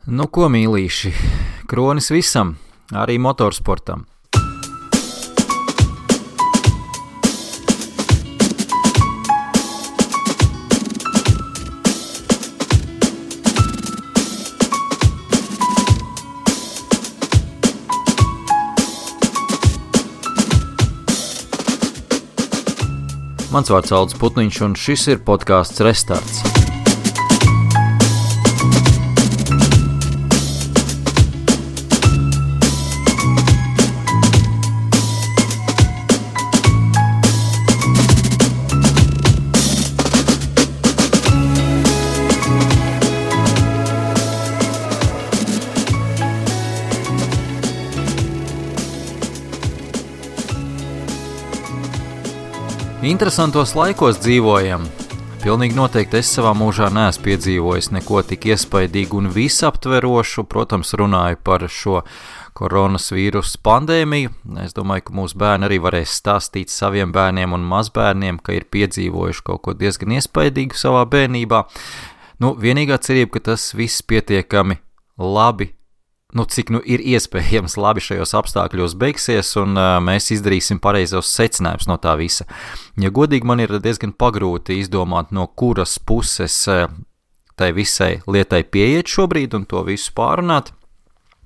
Nu ko, mīlīši, kronis visam, arī motorsportam. Mans vārds Aldis Putniņš, un šis ir podcasts Restarts. Interesantos laikos dzīvojam. Pilnīgi noteikti es savā mūžā neesmu piedzīvojis neko tik iespaidīgu un visaptverošu. Protams, runāju par šo koronavīrusu pandēmiju. Es domāju, ka mūsu bērni arī varēs stāstīt saviem bērniem un mazbērniem, ka ir piedzīvojuši kaut ko diezgan iespaidīgu savā bērnībā. Vienīgā cerība, ka tas viss pietiekami labi, cik ir iespējams labi šajos apstākļos beigsies, un mēs izdarīsim pareizos secinājumus no tā visa. Ja godīgi, man ir diezgan pagrūti izdomāt, no kuras puses tai visai lietai pieiet šobrīd un to visu pārunāt.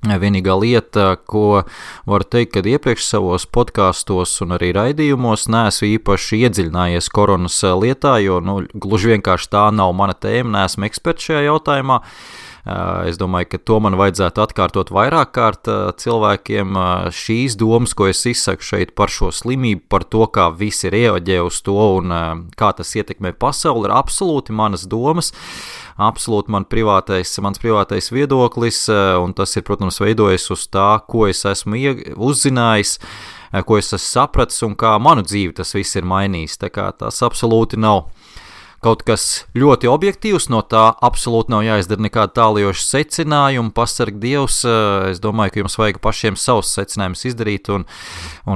Vienīgā lieta, ko varu teikt, kad iepriekš savos podkastos un arī raidījumos neesmu īpaši iedziļinājies koronas lietā, jo gluži vienkārši tā nav mana tēma, neesmu eksperts šajā jautājumā. Es domāju, ka to man vajadzētu atkārtot vairāk kārt cilvēkiem. Šīs domas, ko es izsaku šeit par šo slimību, par to, kā visi reaģē uz to un kā tas ietekmē pasauli, ir absolūti manas domas, absolūti mans privātais viedoklis, un tas ir, protams, veidojis uz tā, ko es esmu uzzinājis, ko es esmu sapratis un kā manu dzīvi tas viss ir mainījis. Tā kā tas absolūti nav kaut kas ļoti objektīvs, no tā absolūti nav jāizdara nekāda tālajoša secinājuma. Pasarg Dievs, es domāju, ka jums vajag pašiem savus secinājumus izdarīt un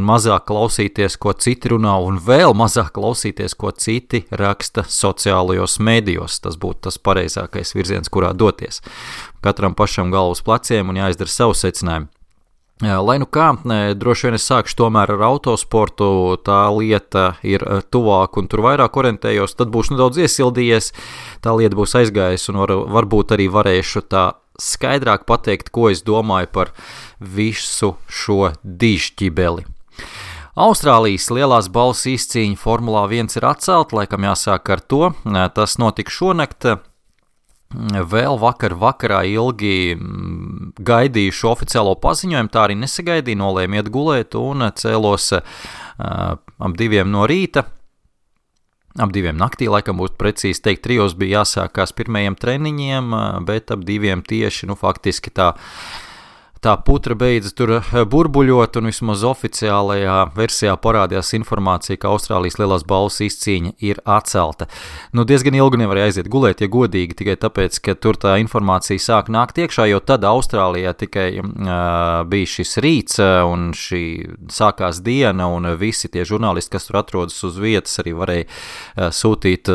mazāk klausīties, ko citi runā, un vēl mazāk klausīties, ko citi raksta sociālajos medijos. Tas būtu tas pareizākais virziens, kurā doties. Katram pašam galvu uz pleciem un jāizdara savu secinājumu. Lai nu kā, droši vien es sākšu tomēr ar autosportu, tā lieta ir tuvāk un tur vairāk orientējos, tad būšu nedaudz iesildījies, tā lieta būs aizgājusi un varbūt arī varēšu tā skaidrāk pateikt, ko es domāju par visu šo dižķibeli. Austrālijas lielās balvas izcīņa Formulā 1 ir atcelta, laikam jāsāk ar to, tas notika šonakt. Vēl vakarā ilgi gaidīju šo oficiālo paziņojumu, tā arī nesagaidīju, nolēmu iet gulēt un cēlos ap 2 no rīta, ap 2 naktī, laikam būtu precīzi teikt, 3 bija jāsākās pirmajiem treniņiem, bet ap 2 tieši, faktiski tā putra beidza tur burbuļot, un vismaz oficiālajā versijā parādījās informācija, ka Austrālijas lielās balvas izcīņa ir atcelta. Diezgan ilgi nevarēja aiziet gulēt, ja godīgi, tikai tāpēc, ka tur tā informācija sāk nākt iekšā, jo tad Austrālijā tikai bija šis rīts, un šī sākās diena, un visi tie žurnālisti, kas tur atrodas uz vietas, arī varēja sūtīt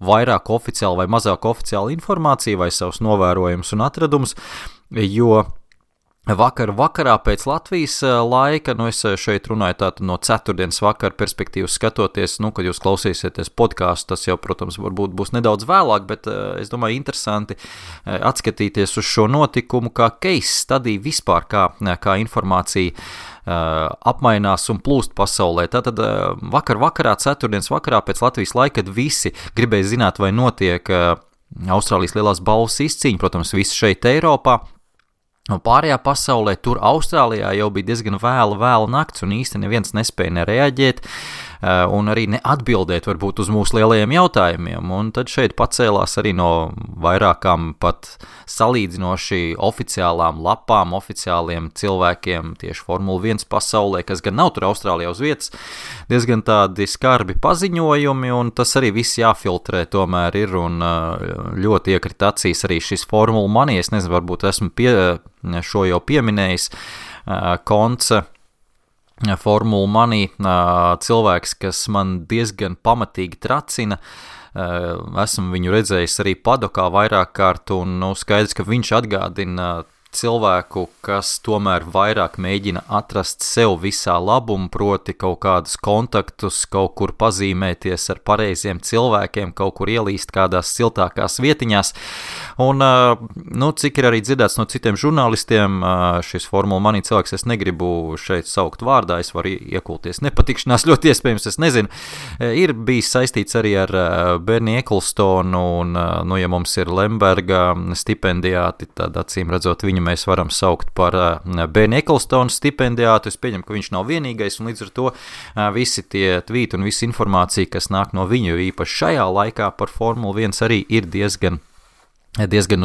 vairāk oficiāli vai mazāk oficiāli informāciju vai savus novērojumus un atradumus, jo vakarā pēc Latvijas laika, es šeit runāju tātad no ceturtdienas vakara perspektīvas skatoties, kad jūs klausīsieties podcastu, tas jau, protams, varbūt būs nedaudz vēlāk, bet es domāju interesanti atskatīties uz šo notikumu kā case study vispār, kā informācija apmainās un plūst pasaulē. Tātad vakarā, ceturtdienas vakarā pēc Latvijas laika, kad visi gribēja zināt, vai notiek Austrālijas lielās balvas izcīņa, protams, visi šeit Eiropā, un pārējā pasaulē, tur Austrālijā jau bija diezgan vēla nakts, un īsti neviens nespēja nereaģēt, un arī neatbildēt varbūt uz mūsu lielajiem jautājumiem, un tad šeit pacēlās arī no vairākām pat salīdzinoši oficiālām lapām, oficiāliem cilvēkiem tieši Formula 1 pasaulē, kas gan nav tur Austrālijā uz vietas, diezgan tādi skarbi paziņojumi, un tas arī viss jāfiltrē tomēr ir, un ļoti iekrit acīs arī šis Formula Money, es nezinu, varbūt esmu šo jau pieminējis, konce Formula Money, cilvēks, kas man diezgan pamatīgi tracina, esmu viņu redzējis arī padokā vairāk kārt, un skaidrs, ka viņš atgādina cilvēku, kas tomēr vairāk mēģina atrast sev visā labumu, proti kaut kādus kontaktus, kaut kur pazīmēties ar pareiziem cilvēkiem, kaut kur ielīst kādās siltākās vietiņās. Un, cik ir arī dzirdēts no citiem žurnālistiem, šis Formula Money cilvēks, es negribu šeit saukt vārdā, es varu iekulties nepatikšanās, ļoti iespējams, es nezinu, ir bijis saistīts arī ar Bernie Ecclestonu, un, ja mums ir Lemberga stipendijāti, tad acīm redzot viņu mēs varam saukt par Bernie Ecclestonu stipendijātu. Es pieņemu, ka viņš nav vienīgais, un līdz ar to visi tie tvīti un visa informācija, kas nāk no viņu, īpaši šajā laikā par Formulu 1 arī ir diezgan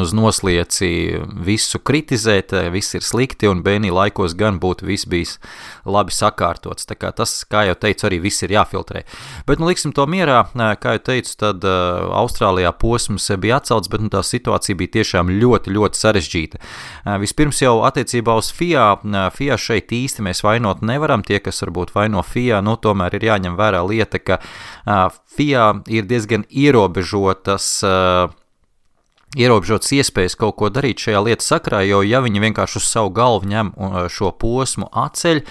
uz noslieci visu kritizēt, viss ir slikti, un Bernie laikos gan būtu viss bijis labi sakārtots. Tā kā tas, kā jau teicu, arī viss ir jāfiltrē. Bet, liksim to mierā, kā jau teicu, tad Austrālijā posms bija atcelts, bet tā situācija bija tiešām ļoti, ļoti sarežģīta. Vispirms jau attiecībā uz FIA šeit īsti mēs vainot nevaram, tie, kas varbūt vaino FIA, tomēr ir jāņem vērā lieta, ka FIA ir diezgan ierobežotas iespējas kaut ko darīt šajā lietas sakrā, jo ja viņi vienkārši uz savu galvu ņem šo posmu atceļ,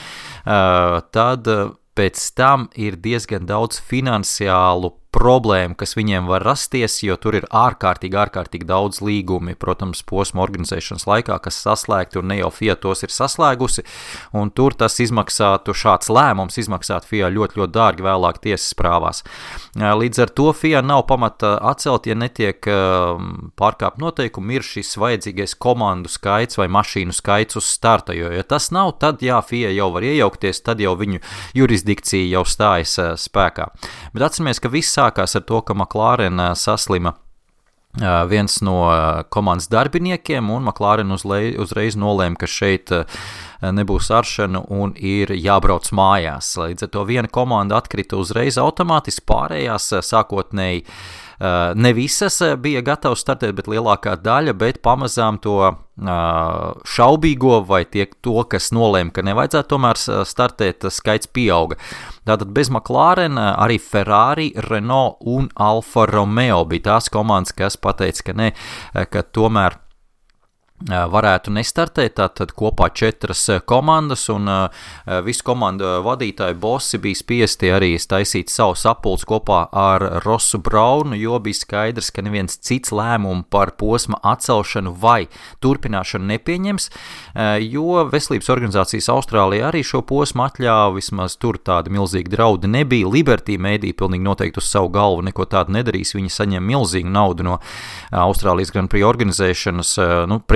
tad pēc tam ir diezgan daudz finansiālu problēmu, kas viņiem var rasties, jo tur ir ārkārtīgi daudz līgumi, protams, posma organizēšanas laikā, kas saslēgti, un ne jau FIA tos ir saslēgusi, un tur tas šāds lēmums izmaksātu FIA ļoti, ļoti dārgi vēlāk tiesas prāvās. Līdz ar to FIA nav pamata atcelt, ja netiek pārkāpt noteikumi, ir šis vajadzīgais komandu skaits vai mašīnu skaits uz starta, jo ja tas nav, tad FIA jau var iejaukties, tad jau viņu jurisdikcija jau stājas spēkā. Bet atceramies, ka viss sākās ar to, ka McLaren saslima viens no komandas darbiniekiem, un McLaren uzreiz nolēma, ka šeit nebūs aršana un ir jābrauc mājās. Līdz ar to viena komanda atkrita uzreiz automātiski, pārējās sākotnēji ne visas bija gatavas startēt, bet lielākā daļa, bet pamazām to šaubīgo vai to, kas nolēma, ka nevajadzētu tomēr startēt, skaits pieauga. Tātad bez McLaren arī Ferrari, Renault un Alfa Romeo bija tās komandas, kas pateica, ka ne, ka tomēr varētu nestartēt, tātad kopā 4 komandas, un visu komandu vadītāju bosi bija spiesti arī taisīt savu sapulci kopā ar Rossu Braunu, jo bija skaidrs, ka neviens cits lēmumu par posma atcelšanu vai turpināšanu nepieņems, jo veselības organizācijas Austrālijā arī šo posmu atļāva, vismaz tur tāda milzīga draudi nebija. Liberty Media pilnīgi noteikti uz savu galvu neko tādu nedarīs, viņi saņem milzīgu naudu no Austrālijas Grand Prix organizēšanas,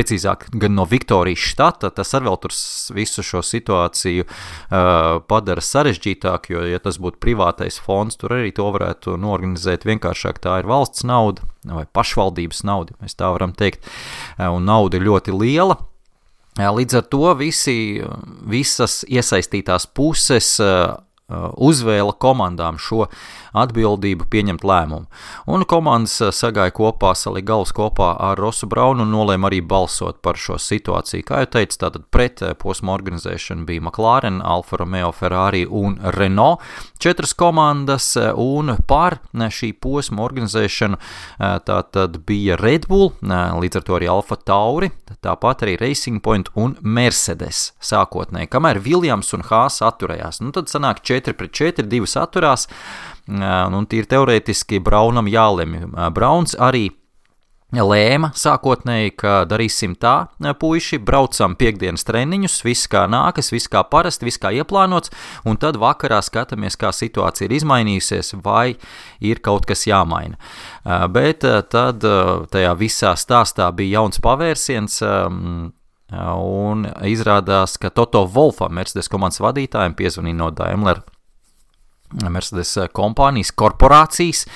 precīzāk gan no Viktorijas štata, tas arī vēl tur visu šo situāciju padara sarežģītāk, jo, ja tas būtu privātais fonds, tur arī to varētu norganizēt vienkāršāk, tā ir valsts nauda vai pašvaldības nauda, mēs tā varam teikt, un nauda ir ļoti liela. Līdz ar to visas iesaistītās puses uzvēla komandām šo atbildību pieņemt lēmumu. Un komandas sagāja kopā, salika galvas kopā ar Rossu Braunu un nolēma arī balsot par šo situāciju. Kā jau teicu, tātad pret posma organizēšanu bija McLaren, Alfa Romeo, Ferrari un Renault 4 komandas, un par šī posma organizēšanu tātad bija Red Bull, līdz ar to arī Alfa Tauri, tāpat arī Racing Point un Mercedes sākotnēji, kamēr Williams un Haas atturējās. Tad sanāk 4-4, 2 atturās, un tīri teorētiski Braunam jālemj. Brauns arī lēma sākotnēji, ka darīsim tā, puiši, braucam piekdienas treniņus, viss kā nākas, viss kā parasti, viss kā ieplānots, un tad vakarā skatāmies, kā situācija ir izmainījusies, vai ir kaut kas jāmaina. Bet tad tajā visā stāstā bija jauns pavērsiens, un izrādās, ka Toto Wolffam, Mercedes komandas vadītājiem, piezvanīja no Daimler Mercedes kompānijas korporācijas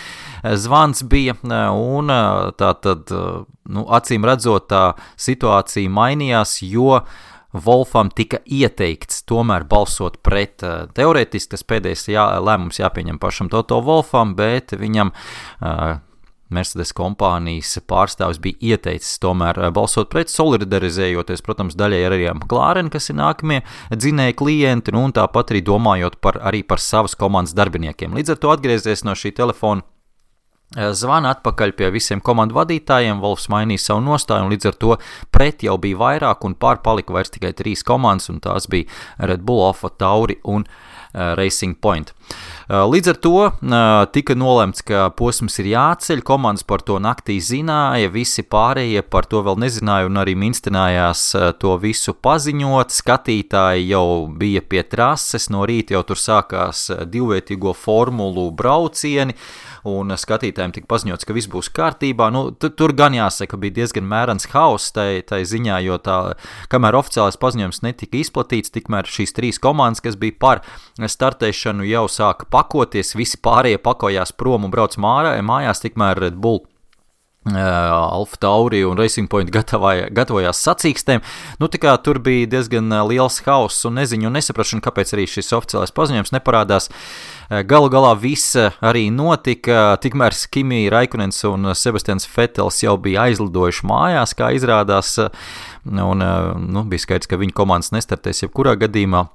zvans bija, un tātad, acīm redzot, tā situācija mainījās, jo Wolffam tika ieteikts tomēr balsot pret. Teorētiski tas pēdējais lēmums jāpieņem pašam Toto Wolffam, bet viņam Mercedes kompānijas pārstāvis bija ieteicis tomēr balsot pret, solidarizējoties, protams, daļai arī ar McLaren, kas ir nākamie dzinēji klienti, un tāpat arī domājot arī par savas komandas darbiniekiem. Līdz ar to atgriezies no šī telefona zvana atpakaļ pie visiem komandu vadītājiem, Wolfs mainīja savu nostāju, un līdz ar to pret jau bija vairāk, un pār palika vairs tikai 3 komandas, un tās bija Red Bull, Alfa Tauri un Racing Point. Līdz ar to tika nolemts, ka posms ir jāceļ, komandas par to naktī zināja, visi pārējie par to vēl nezināja un arī minstinājās to visu paziņot, skatītāji jau bija pie trases, no rīta jau tur sākās divvietīgo formulu braucieni, un skatītājiem tika paziņots, ka viss būs kārtībā. Tur gan jāsaka, bija diezgan mērens hauss tai ziņā, jo kamēr oficiālais paziņojums netika izplatīts, tikmēr šīs 3 komandas, kas bija par startēšanu, jau sāka pakoties, visi pārējie pakojās prom un brauc mājās, tikmēr Red Bull, Alfa Tauri un Racing Point gatavojās sacīkstēm. Tā kā tur bija diezgan liels hauss un neziņu un nesaprašana, kāpēc arī šis oficiālais paziņojums neparādās. Galu galā viss arī notika, tikmēr Kimi Raikonens un Sebastians Vettels jau bija aizlidojuši mājās, kā izrādās, un bija skaidrs, ka viņa komandas nestartēs jebkurā gadījumā.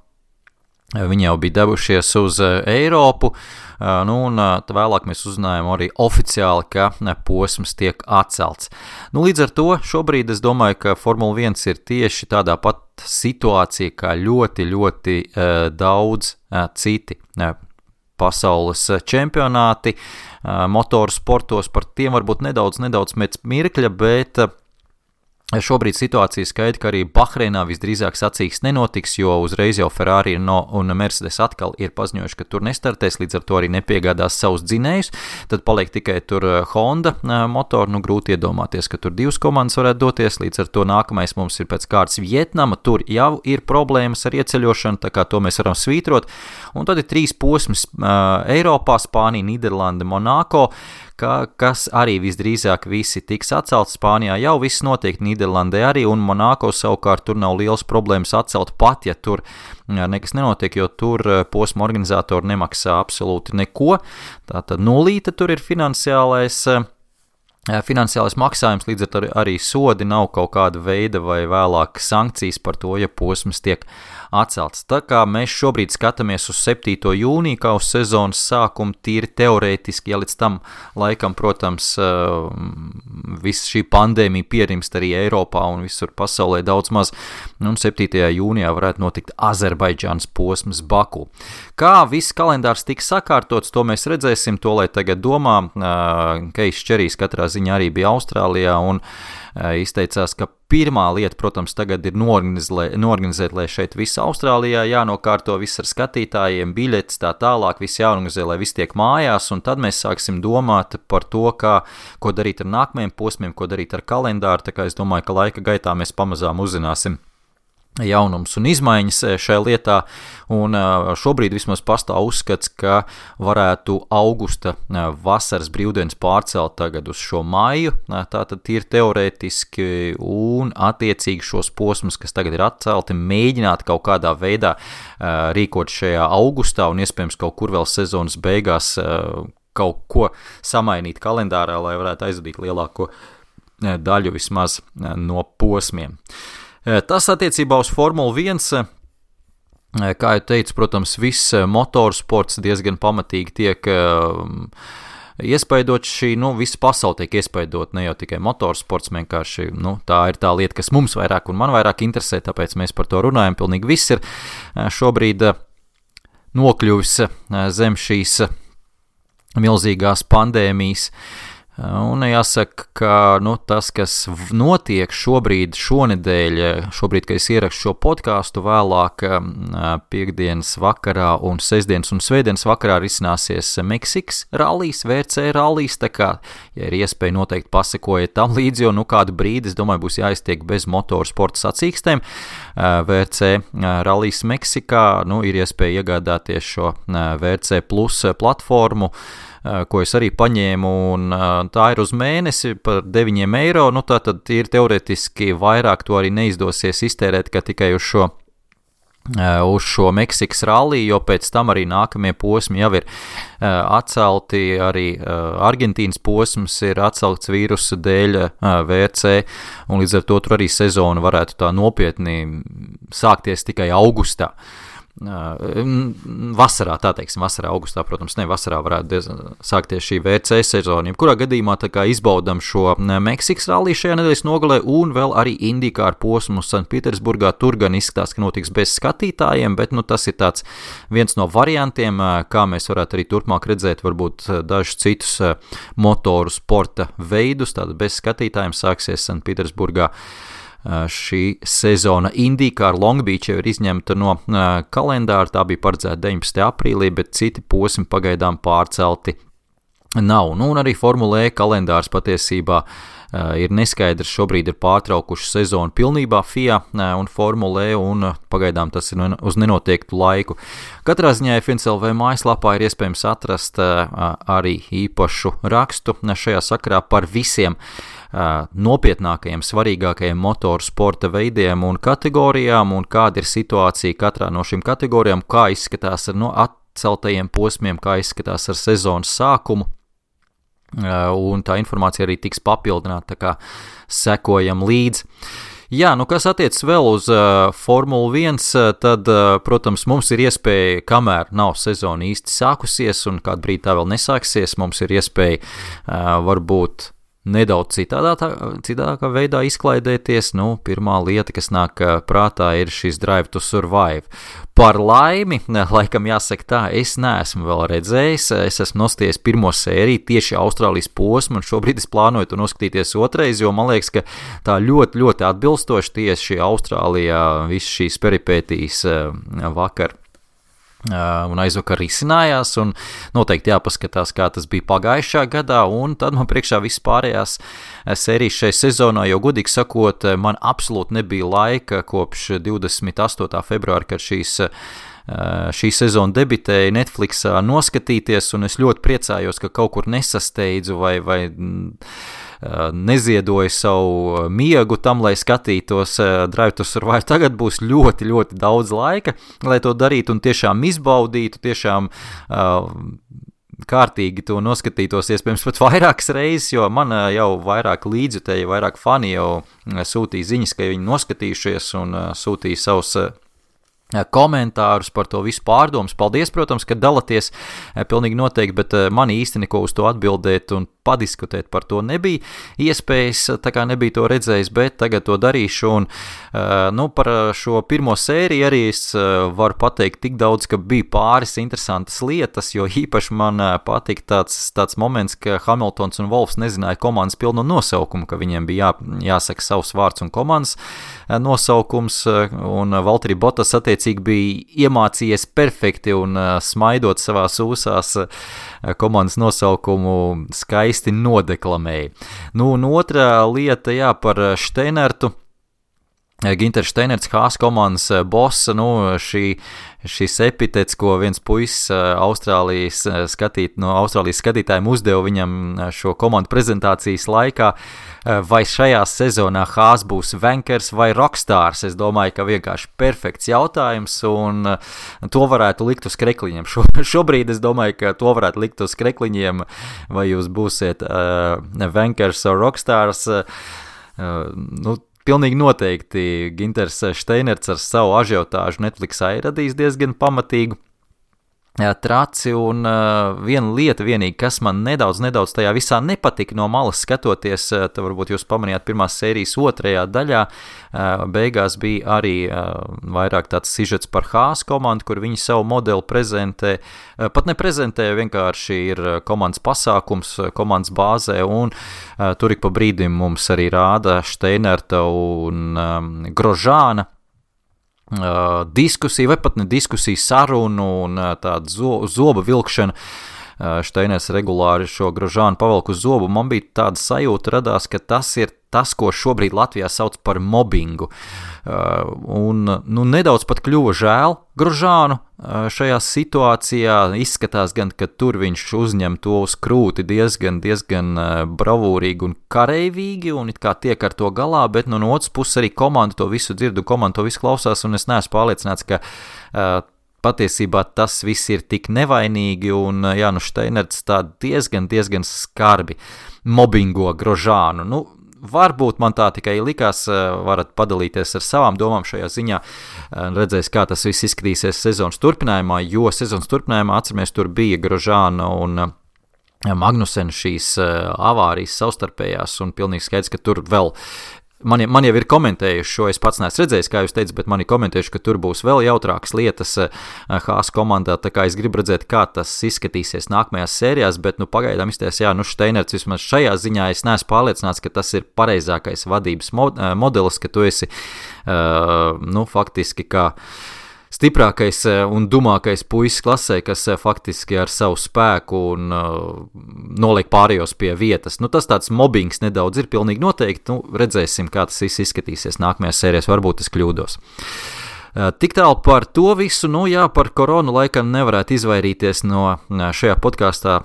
Viņi jau bija devušies uz Eiropu, un vēlāk mēs uzzinājām arī oficiāli, ka posms tiek atcelts. Līdz ar to šobrīd es domāju, ka Formula 1 ir tieši tādā pat situācija, kā ļoti, ļoti daudz citi pasaules čempionāti, motoru sportos, par tiem varbūt nedaudz pēc mirkļa, bet šobrīd situācija skaidra, ka arī Bahreinā visdrīzāk sacīksts nenotiks, jo uzreiz jau Ferrari un Mercedes atkal ir paziņojuši, ka tur nestartēs, līdz ar to arī nepiegādās savus dzinējus, tad paliek tikai tur Honda motoru, grūti iedomāties, ka tur 2 komandas varētu doties, līdz ar to nākamais mums ir pēc kārtas Vietnama, tur jau ir problēmas ar ieceļošanu, tā kā to mēs varam svītrot, un tad ir 3 posms Eiropā, Spānija, Nīderlande, Monako, kas arī visdrīzāk visi tiks atcelts. Spānijā jau viss notiek, Nīderlandē arī, un Monako savukārt tur nav liels problēmas atcelt pat, ja tur nekas nenotiek, jo tur posma organizatori nemaksā absolūti neko. Tātad nulīte tur ir finansiālais maksājums, līdz ar to arī sodi nav kaut kāda veida vai vēlāk sankcijas par to, ja posms tiek atcelts. Tā kā mēs šobrīd skatāmies uz 7. jūniju, kā uz sezonas sākumu, tīri teorētiski, ja līdz tam laikam, protams, viss šī pandēmija pierimst arī Eiropā un visur pasaulē daudz maz, un 7. jūnijā varētu notikt Azerbaidžānas posms Baku. Kā viss kalendārs tiks sakārtots, to mēs redzēsim, to lai tagad domā. Keijs Čerijs katrā ziņā arī bija Austrālijā un izteicās, ka pirmā lieta, protams, tagad ir norganizēt, lai šeit viss Austrālijā jānokārto, viss ar skatītājiem, biļetes, tā tālāk, viss jāorganizē, lai viss tiek mājās, un tad mēs sāksim domāt par to, ko darīt ar nākamajiem posmiem, ko darīt ar kalendāru, tā kā es domāju, ka laika gaitā mēs pamazām uzzināsim jaunums un izmaiņas šajā lietā, un šobrīd vismaz pastāv uzskats, ka varētu augusta vasaras brīvdienas pārcelt tagad uz šo maiju, tātad ir teorētiski, un attiecīgi šos posmus, kas tagad ir atcelti, mēģināt kaut kādā veidā rīkot šajā augustā, un iespējams kaut kur vēl sezonas beigās kaut ko samainīt kalendārā, lai varētu aizvadīt lielāko daļu vismaz no posmiem. Tas attiecībā uz Formulu 1, kā jau teicu, protams, viss motorsports diezgan pamatīgi tiek iespaidots visa pasaule tiek iespaidot, ne jau tikai motorsports, vienkārši, tā ir tā lieta, kas mums vairāk un man vairāk interesē, tāpēc mēs par to runājam, pilnīgi viss ir šobrīd nokļuvis zem šīs milzīgās pandēmijas. Un jāsaka, ka tas, kas notiek šonedēļ, kad es ierakstu šo podcastu, vēlāk piekdienas vakarā un sestdienas un svētdienas vakarā risināsies Meksikas rallijs, VRC rallijs, tā kā, ja ir iespēja noteikti pasekojiet tam līdzi, jo kādu brīdi, es domāju, būs jāiztiek bez motorsporta sacīkstēm. VRC rallijs Meksikā, ir iespēja iegādāties šo VRC Plus platformu, ko es arī paņēmu, un tā ir uz mēnesi par 9 eiro, tātad ir teoretiski vairāk to arī neizdosies iztērēt, ka tikai uz šo Meksikas ralliju, jo pēc tam arī nākamie posmi jau ir atcelti, arī Argentīnas posms ir atcelts vīrusa dēļ VRC, un līdz ar to tur arī sezona varētu tā nopietni sākties tikai augustā. vasarā, tā teiksim, vasarā, augustā, protams, ne vasarā varētu sākties šī WC sezona. Kurā gadījumā tā kā izbaudam šo Meksikas ralliju šajā nedēļas nogalē un vēl arī IndyCar posmu Sanktpēterburgā. Tur gan izskatās, ka notiks bez skatītājiem, bet tas ir tāds viens no variantiem, kā mēs varētu arī turpmāk redzēt varbūt dažus citus motoru sporta veidus, tātad bez skatītājiem sāksies Sanktpēterburgā. Šī sezona IndyCar Long Beach jau ir izņemta no kalendāra, tā bija paredzēta 19. aprīlī, bet citi posmi pagaidām pārcelti nav. Un arī Formula E kalendārs patiesībā ir neskaidrs, šobrīd ir pārtraukuši sezonu pilnībā FIA un Formula E, un pagaidām tas ir uz nenoteiktu laiku. Katrā ziņā FNCLV mājaslapā ir iespējams atrast arī īpašu rakstu šajā sakarā par visiem nopietnākajiem, svarīgākajiem motoru sporta veidiem un kategorijām, un kāda ir situācija katrā no šīm kategorijām, kā izskatās ar atceltajiem posmiem, kā izskatās ar sezonas sākumu. Un tā informācija arī tiks papildināta, tā kā sekojam līdzi. Jā, kas attiecas vēl uz Formulu 1, tad, protams, mums ir iespēja, kamēr nav sezona īsti sākusies un kādu brīdi tā vēl nesāksies, mums ir iespēja varbūt nedaudz citādākā veidā izklaidēties. Pirmā lieta, kas nāk prātā, ir šis Drive to Survive. Par laimi, laikam jāsaka tā, es neesmu vēl redzējis, es esmu nostājies pirmo sēriju tieši Austrālijas posmu, un šobrīd es plānoju to noskatīties otrais, jo man liekas, ka tā ļoti, ļoti atbilstoši tieši Austrālijā viss šīs peripētīs vakar un aizvakar risinājās, un noteikti jāpaskatās, kā tas bija pagājušā gadā, un tad man priekšā viss pārējās sērijas šai sezonā, jo godīgi sakot, man absolūti nebija laika kopš 28. februāra, kad šī sezona debitēja Netflixā noskatīties, un es ļoti priecājos, ka kaut kur nesasteidzu vai neziedoju savu miegu tam, lai skatītos Drive to Survive. Tagad būs ļoti, ļoti daudz laika, lai to darītu un tiešām izbaudītu, tiešām kārtīgi to noskatītos, iespējams pat vairākas reizes, jo man jau vairāk līdzjutēji, vairāk fani jau sūtīja ziņas, ka viņi noskatījušies un sūtīja savus komentārus par to visu pārdomas. Paldies, protams, ka dalaties pilnīgi noteikti, bet man īsti neko uz to atbildēt un padiskutēt par to nebija iespējas, tā kā nebija to redzējis, bet tagad to darīšu, un par šo pirmo sēriju arī es varu pateikt tik daudz, ka bija pāris interesantas lietas, jo īpaši man patika tāds moments, ka Hamiltons un Wolfs nezināja komandas pilno nosaukumu, ka viņiem bija jāsaka savs vārds un komandas nosaukums, un Valtteri Bottas attiecīgi bija iemācījies perfekti un smaidot savās ūsās komandas nosaukumu skaisti nodeklamēja. Un otrā lieta, par Steinertu. Ginters Steinerts, Haas komandas boss, šis epitets, ko viens puisis Austrālijas skatītājiem uzdeva viņam šo komandu prezentācijas laikā, vai šajā sezonā Haas būs Vankers vai Rockstars. Es domāju, ka vienkārši perfekts jautājums, un to varētu likt uz krekliņiem. Šobrīd es domāju, ka to varētu likt uz krekliņiem, vai jūs būsiet Vankers vai Rockstars. Pilnīgi noteikti Ginters Steinerts ar savu ažiotāžu Netflixā ir radījis diezgan pamatīgu traci, un viena lieta vienīgi, kas man nedaudz tajā visā nepatika no malas skatoties, tad varbūt jūs pamanījāt pirmās sērijas otrajā daļā, beigās bija arī vairāk tāds sižets par Haas komandu, kur viņi savu modeli prezentē, pat neprezentē, vienkārši ir komandas pasākums, komandas bāzē, un tur ik pa brīdim mums arī rāda Steinerta un Grožāna diskusija, vai pat ne diskusija, sarunu un tāda zoba vilkšana. Steiners regulāri šo Grožānu pavelk uz zobu. Man bija tāda sajūta radās, ka tas ir tas, ko šobrīd Latvijā sauc par mobbingu. Un nedaudz pat kļuva žēl Grožānu šajā situācijā. Izskatās gan, ka tur viņš uzņem to uz krūti diezgan bravūrīgi un kareivīgi, un it kā tiek ar to galā, bet no otras puses arī komanda to visu dzird un komanda to visu klausās, un es neesmu pārliecināts, ka patiesībā tas viss ir tik nevainīgi, un Steinerts tā diezgan skarbi mobbingo Grožānu. varbūt man tā tikai likās, varat padalīties ar savām domām šajā ziņā, redzēs, kā tas viss izskatīsies sezonas turpinājumā, jo sezonas turpinājumā, atceramies, tur bija Grožāna un Magnusen šīs avārijas savstarpējās, un pilnīgi skaidrs, ka tur vēl Man jau ir komentējuši šo, es pats neesmu redzējis, kā jūs teicat, bet mani komentējuši, ka tur būs vēl jautrākas lietas Haas komandā, tā kā es gribu redzēt, kā tas izskatīsies nākamajās sērijās, bet pagaidām izties, Steinerts vismaz šajā ziņā es neesmu pārliecināts, ka tas ir pareizākais vadības modelis, ka tu esi, faktiski kā stiprākais un dumākais puisis klasē, kas faktiski ar savu spēku un noliek pārējos pie vietas. Tas tāds mobbings nedaudz ir pilnīgi noteikti. Redzēsim, kā tas viss izskatīsies nākamajās sērijās. Varbūt es kļūdos. Tik tālu par to visu. Par koronu laikam nevarētu izvairīties no šajā podkāstā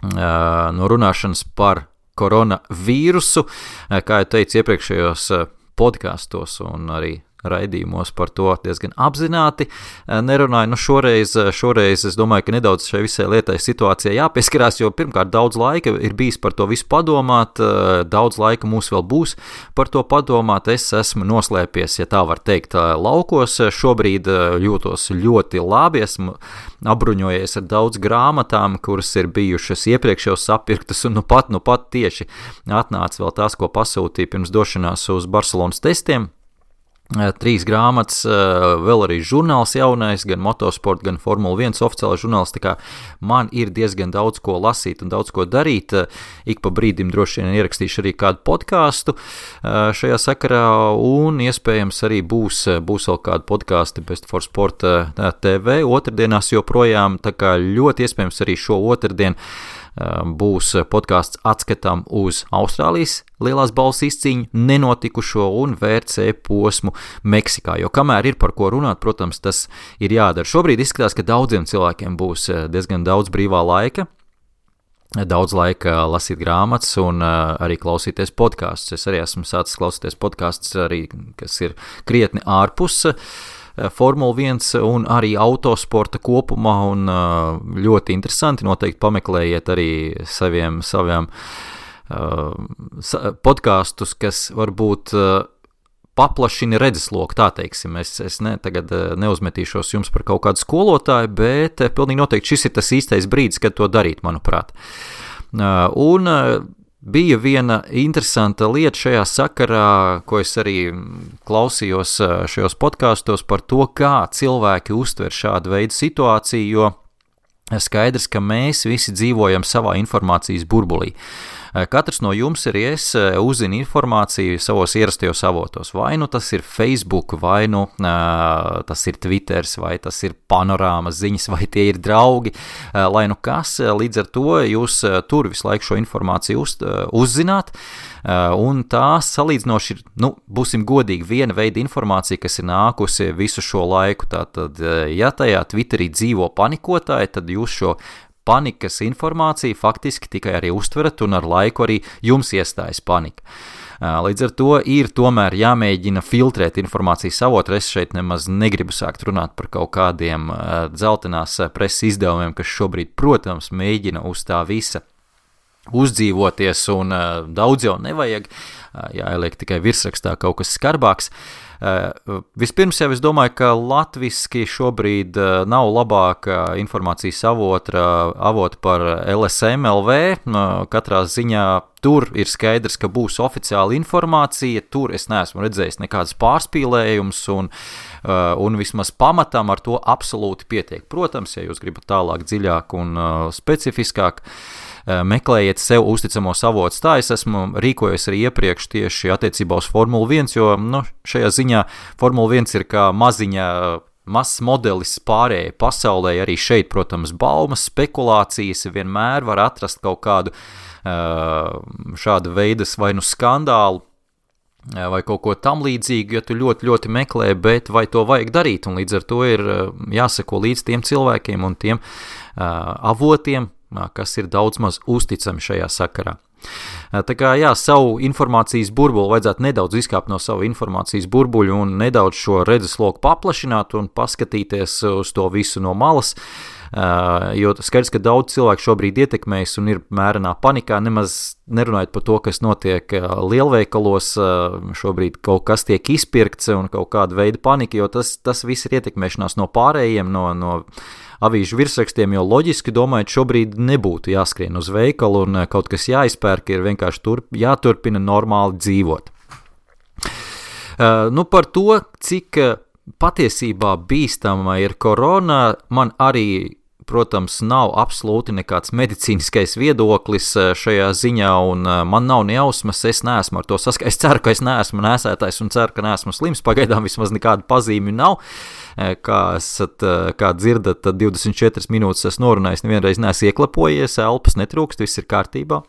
no runāšanas par koronavīrusu. Kā jau teicu iepriekšējos podkāstos un arī raidījumos par to diezgan apzināti nerunāju. Šoreiz es domāju, ka nedaudz šai visai lietai situācijai jāpieskarās, jo pirmkārt daudz laika ir bijis par to visu padomāt, daudz laika mums vēl būs par to padomāt. Es esmu noslēpies, ja tā var teikt, laukos. Šobrīd jūtos ļoti labi, esmu apbruņojies ar daudz grāmatām, kuras ir bijušas iepriekš jau sapirktas, un nu pat tieši atnāca vēl tās, ko pasūtīja pirms došanās uz Barcelonas testiem. 3 grāmatas, vēl arī žurnāls jaunais, gan motosport, gan Formula 1 oficiālais žurnāls, tā kā man ir diezgan daudz ko lasīt un daudz ko darīt. Ik pa brīdim droši vien ierakstīšu arī kādu podkāstu šajā sakarā, un iespējams arī būs vēl kādu podkāstu Best for Sport TV otrdienās joprojām, tā kā ļoti iespējams arī šo otrdienu būs podkāsts atskatām uz Austrālijas lielās balvas izcīņu, nenotikušo un VRC posmu Meksikā, jo kamēr ir par ko runāt, protams, tas ir jādara. Šobrīd izskatās, ka daudziem cilvēkiem būs diezgan daudz brīvā laika, daudz laika lasīt grāmatas un arī klausīties podkāstus. Es arī esmu sācis klausīties podkāstus, arī, kas ir krietni ārpus Formula 1 un arī autosporta kopumā, un ļoti interesanti, noteikti pameklējiet arī saviem podkāstus, kas varbūt paplašina redzesloku, tā teiksim. Es tagad neuzmetīšos jums par kaut kādu skolotāju, bet pilnīgi noteikti šis ir tas īstais brīdis, kad to darīt, manuprāt. Un bija viena interesanta lieta šajā sakarā, ko es arī klausījos šajos podkāstos par to, kā cilvēki uztver šādu veidu situāciju, jo skaidrs, ka mēs visi dzīvojam savā informācijas burbulī. Katrs no jums arī es uzzina informāciju savos ierastajos avotos. Vai nu tas ir Facebook, vai nu tas ir Twitters, vai tas ir panorāmas ziņas, vai tie ir draugi, lai nu kas. Līdz ar to jūs tur visu laiku šo informāciju uzzināt, un tā salīdzinoši ir, būsim godīgi, viena veida informācija, kas ir nākusi visu šo laiku. Tātad, ja tajā Twitterī dzīvo panikotāji, tad jūs šo panikas informāciju faktiski tikai arī uztverat, un ar laiku arī jums iestājas panika. Līdz ar to ir tomēr jāmēģina filtrēt informācijas avotu. Es šeit nemaz negribu sākt runāt par kaut kādiem dzeltenās preses izdevumiem, kas šobrīd, protams, mēģina uz tā visa uzdzīvoties, un daudz jau nevajag, jāieliek tikai virsrakstā kaut kas skarbāks. Vispirms jau es domāju, ka latviski šobrīd nav labāka informācijas avota par LSM LV. Katrā ziņā tur ir skaidrs, ka būs oficiāla informācija, tur es neesmu redzējis nekādas pārspīlējumus, un vismaz pamatam ar to absolūti pietiek. Protams, ja jūs gribat tālāk, dziļāk un specifiskāk, meklējiet sev uzticamos avotus. Tā es esmu rīkojies arī iepriekš tieši attiecībā uz Formula 1, jo šajā ziņā Formula 1 ir kā mazs modelis pārējai pasaulē. Arī šeit, protams, baumas, spekulācijas, vienmēr var atrast kaut kādu šāda veidas vai nu skandālu, vai kaut ko tam līdzīgu, ja tu ļoti, ļoti meklē, bet vai to vajag darīt, un līdz ar to ir jāseko līdz tiem cilvēkiem un tiem avotiem, kas ir daudz maz uzticami šajā sakarā. Tā kā, jā, savu informācijas burbuli vajadzētu nedaudz izkāpt no savu informācijas burbuļu un nedaudz šo redzesloku paplašināt un paskatīties uz to visu no malas. Jo skaidrs, ka daudz cilvēku šobrīd ietekmējas un ir mērenā panikā, nemaz nerunājot par to, kas notiek lielveikalos, šobrīd kaut kas tiek izpirkts un kaut kāda veida panika, jo tas viss ir ietekmēšanās no pārējiem, no avīžu virsrakstiem, jo loģiski domājot, šobrīd nebūtu jāskrien uz veikalu un kaut kas jāizpērk, ir vienkārši jāturpina normāli dzīvot. Par to, cik patiesībā bīstama ir korona, man arī, protams, nav absolūti nekāds medicīniskais viedoklis šajā ziņā, un man nav nejausmas, es neesmu ar to saskaits. Es ceru, ka es neesmu nēsētājs un ceru, ka neesmu slims. Pagaidām vismaz nekāda pazīmi nav. Kā dzirdat, tad 24 minūtes es norunājis, nevienreiz neesmu ieklapojies, elpas netrūkst, viss ir kārtībā.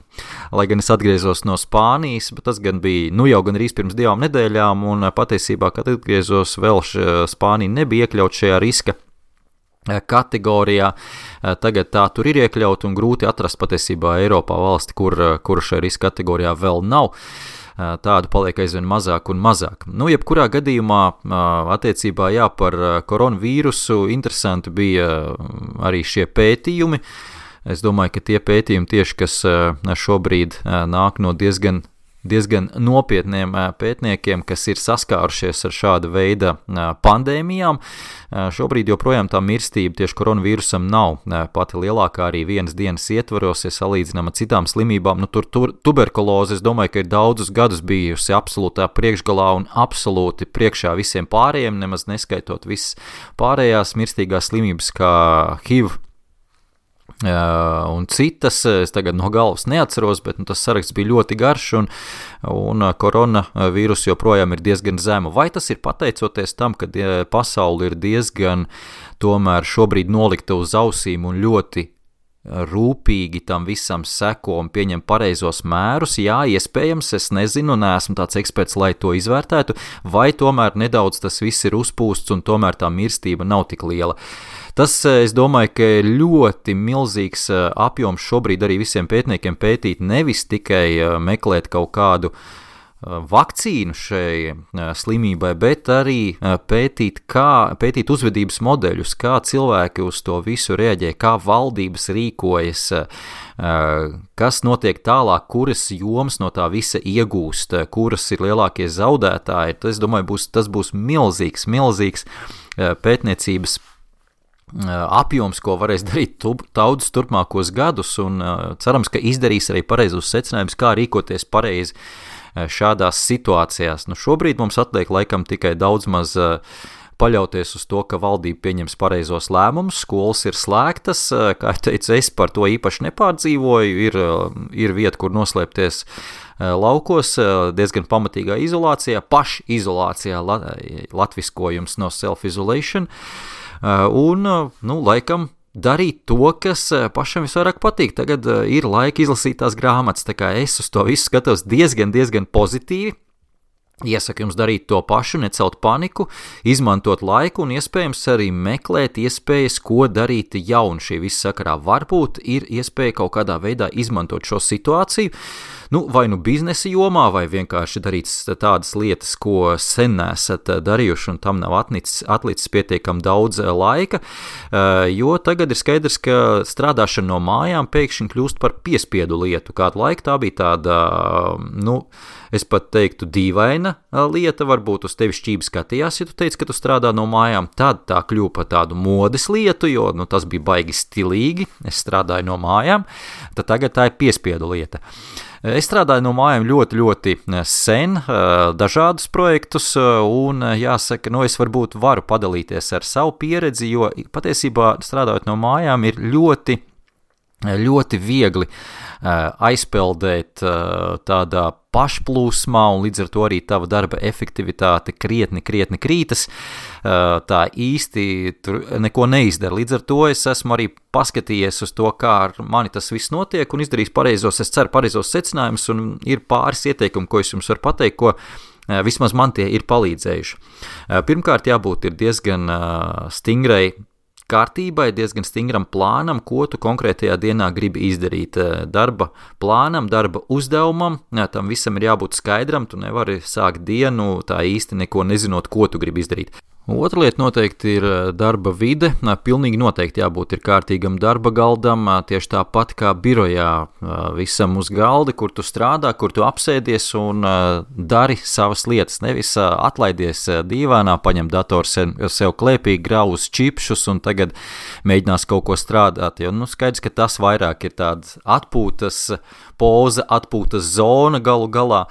Lai gan es atgriezos no Spānijas, bet tas gan bija jau gan arī pirms 2 nedēļām, un patiesībā, kad atgriezos, vēl Spānija nebija iekļaut šajā riska kategorijā. Tagad tā tur ir iekļaut un grūti atrast patiesībā Eiropā valsti, kur šajā riska kategorijā vēl nav. Tādu paliek aizvien mazāk un mazāk. Jebkurā gadījumā attiecībā par koronavīrusu interesanti bija arī šie pētījumi. Es domāju, ka tie pētījumi tieši, kas šobrīd nāk no diezgan nopietniem pētniekiem, kas ir saskārušies ar šāda veida pandēmijām. Šobrīd joprojām tā mirstība tieši koronavīrusam nav pati lielākā arī vienas dienas ietvaros, ja salīdzinām ar citām slimībām. Tuberkuloze, es domāju, ka ir daudzus gadus bijusi absolūtā priekšgalā un absolūti priekšā visiem pārējiem, nemaz neskaitot visas pārējās mirstīgās slimības kā HIV, un citas, es tagad no galvas neatceros, bet tas saraksts bija ļoti garš un koronavīrus joprojām ir diezgan zemu. Vai tas ir pateicoties tam, ka pasauli ir diezgan tomēr šobrīd nolikta uz ausīm un ļoti rūpīgi tam visam seko un pieņem pareizos mērus? Jā, iespējams, es nezinu, neesmu tāds eksperts, lai to izvērtētu, vai tomēr nedaudz tas viss ir uzpūsts un tomēr tā mirstība nav tik liela. Tas, es domāju, ka ir ļoti milzīgs apjoms šobrīd arī visiem pētniekiem pētīt, nevis tikai meklēt kaut kādu vakcīnu šai slimībai, bet arī pētīt uzvedības modeļus, kā cilvēki uz to visu reaģē, kā valdības rīkojas, kas notiek tālāk, kuras jomas no tā visa iegūst, kuras ir lielākie zaudētāji. Es domāju, tas būs milzīgs pētniecības apjoms, ko varēs darīt daudzus turpmākos gadus, un cerams, ka izdarīs arī pareizos secinājumus, kā rīkoties pareizi šādās situācijās. Šobrīd mums atliek laikam tikai daudz maz paļauties uz to, ka valdība pieņems pareizos lēmumus, skolas ir slēgtas, kā es teicu, es par to īpaši nepārdzīvoju, ir vieta, kur noslēpties laukos, diezgan pamatīgā izolācijā, pašizolācijā, latviskojums no self-isolation, un, laikam, darīt to, kas pašam visvairāk patīk. Tagad ir laika izlasīt tās grāmatas, tā kā es uz to visu skatos diezgan pozitīvi. Iesaku jums darīt to pašu, necelt paniku, izmantot laiku un iespējams arī meklēt iespējas, ko darīt jaunu šī visa sakarā. Varbūt ir iespēja kaut kādā veidā izmantot šo situāciju, vai biznesa jomā, vai vienkārši darīt tādas lietas, ko sen nesat darījuši un tam nav atlicis pietiekam daudz laika, jo tagad ir skaidrs, ka strādāšana no mājām pēkšņi kļūst par piespiedu lietu. Kādu laiku tā bija tāda, es pat teiktu, dīvaina lieta, varbūt uz tevi šķīvi skatījās, ja tu teici, ka tu strādā no mājām, tad tā kļuva par tādu modes lietu, jo tas bija baigi stilīgi, es strādāju no mājām, tad tagad tā ir piespiedu lieta. Es strādāju no mājām ļoti sen, dažādus projektus, un jāsaka, es varbūt varu padalīties ar savu pieredzi, jo patiesībā strādājot no mājām ir ļoti viegli aizpeldēt tādā pašplūsmā, un līdz ar to arī tava darba efektivitāte krietni krītas, tā īsti tur neko neizdara. Līdz ar to es esmu arī paskatījies uz to, kā ar mani tas viss notiek, un izdarījis pareizos secinājumus, un ir pāris ieteikumi, ko es jums varu pateikt, ko vismaz man tie ir palīdzējuši. Pirmkārt, jābūt ir diezgan stingrai kārtībai, diezgan stingram plānam, ko tu konkrētajā dienā gribi izdarīt. Darba plānam, darba uzdevumam, tam visam ir jābūt skaidram, tu nevari sākt dienu tā īsti neko nezinot, ko tu gribi izdarīt. Otra lieta noteikti ir darba vide. Pilnīgi noteikti jābūt ir kārtīgam darba galdam, tieši tāpat kā birojā, visam uz galda, kur tu strādā, kur tu apsēdies un dari savas lietas. Nevis atlaidies dīvānā, paņem datoru sev klēpī, grauz čipšus un tagad mēģinās kaut ko strādāt. Jo skaidrs, ka tas vairāk ir tāds atpūtas poza, atpūtas zona galu galā,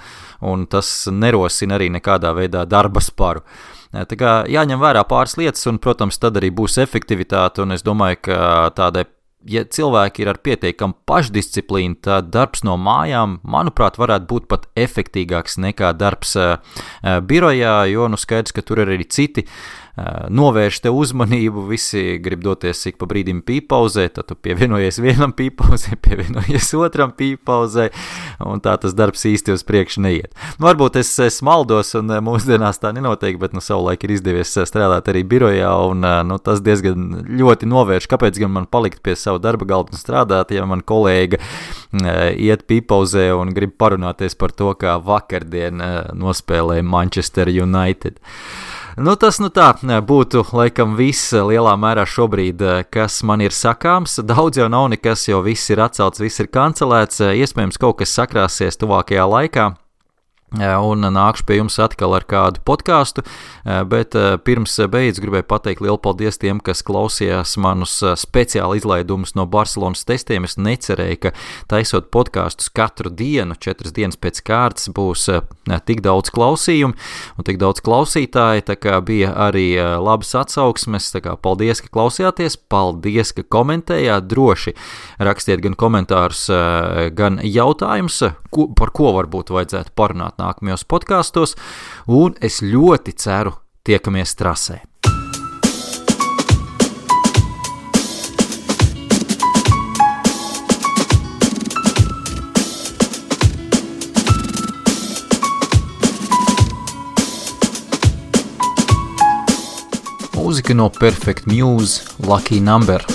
un tas nerosina arī nekādā veidā darba sparu. Tā kā jāņem vērā pāris lietas, un, protams, tad arī būs efektivitāte, un es domāju, ka tādai, ja cilvēki ir ar pietiekamu pašdisciplīnu, tad darbs no mājām, manuprāt, varētu būt pat efektīgāks nekā darbs birojā, jo skaidrs, ka tur ir arī citi novērš te uzmanību, visi grib doties ik pa brīdim pīpauzē, tad tu pievienojies vienam pīpauzē, pievienojies otram pīpauzē, un tā tas darbs īsti uz priekšu neiet. Varbūt es maldos, un mūsdienās tā nenotiek, bet savulaik ir izdevies strādāt arī birojā, un tas diezgan ļoti novērš, kāpēc gan man palikt pie savu darba galda un strādāt, ja man kolēga iet pīpauzē un grib parunāties par to, kā vakardien nospēlēja Manchester United. Tas tā būtu laikam viss lielā mērā šobrīd, kas man ir sakāms. Daudz jau nav nekas, jo viss ir atcelts, viss ir kancelēts. Iespējams, kaut kas sakrāsies tuvākajā laikā. Un nākšu pie jums atkal ar kādu podcastu, bet pirms beidz gribēju pateikt lielu paldies tiem, kas klausījās manus speciāli izlaidumus no Barcelonas testiem. Es necerēju, ka taisot podkastus katru dienu, 4 dienas pēc kārtas, būs tik daudz klausījumu un tik daudz klausītāji, tā kā bija arī labas atsauksmes, tā kā paldies, ka klausījāties, paldies, ka komentējāt, droši rakstiet gan komentārus, gan jautājumus, par ko varbūt vajadzētu parunāt nākamajos podkastos, un es ļoti ceru tiekamies trasē. Mūzika no Perfect Muse, Lucky Number.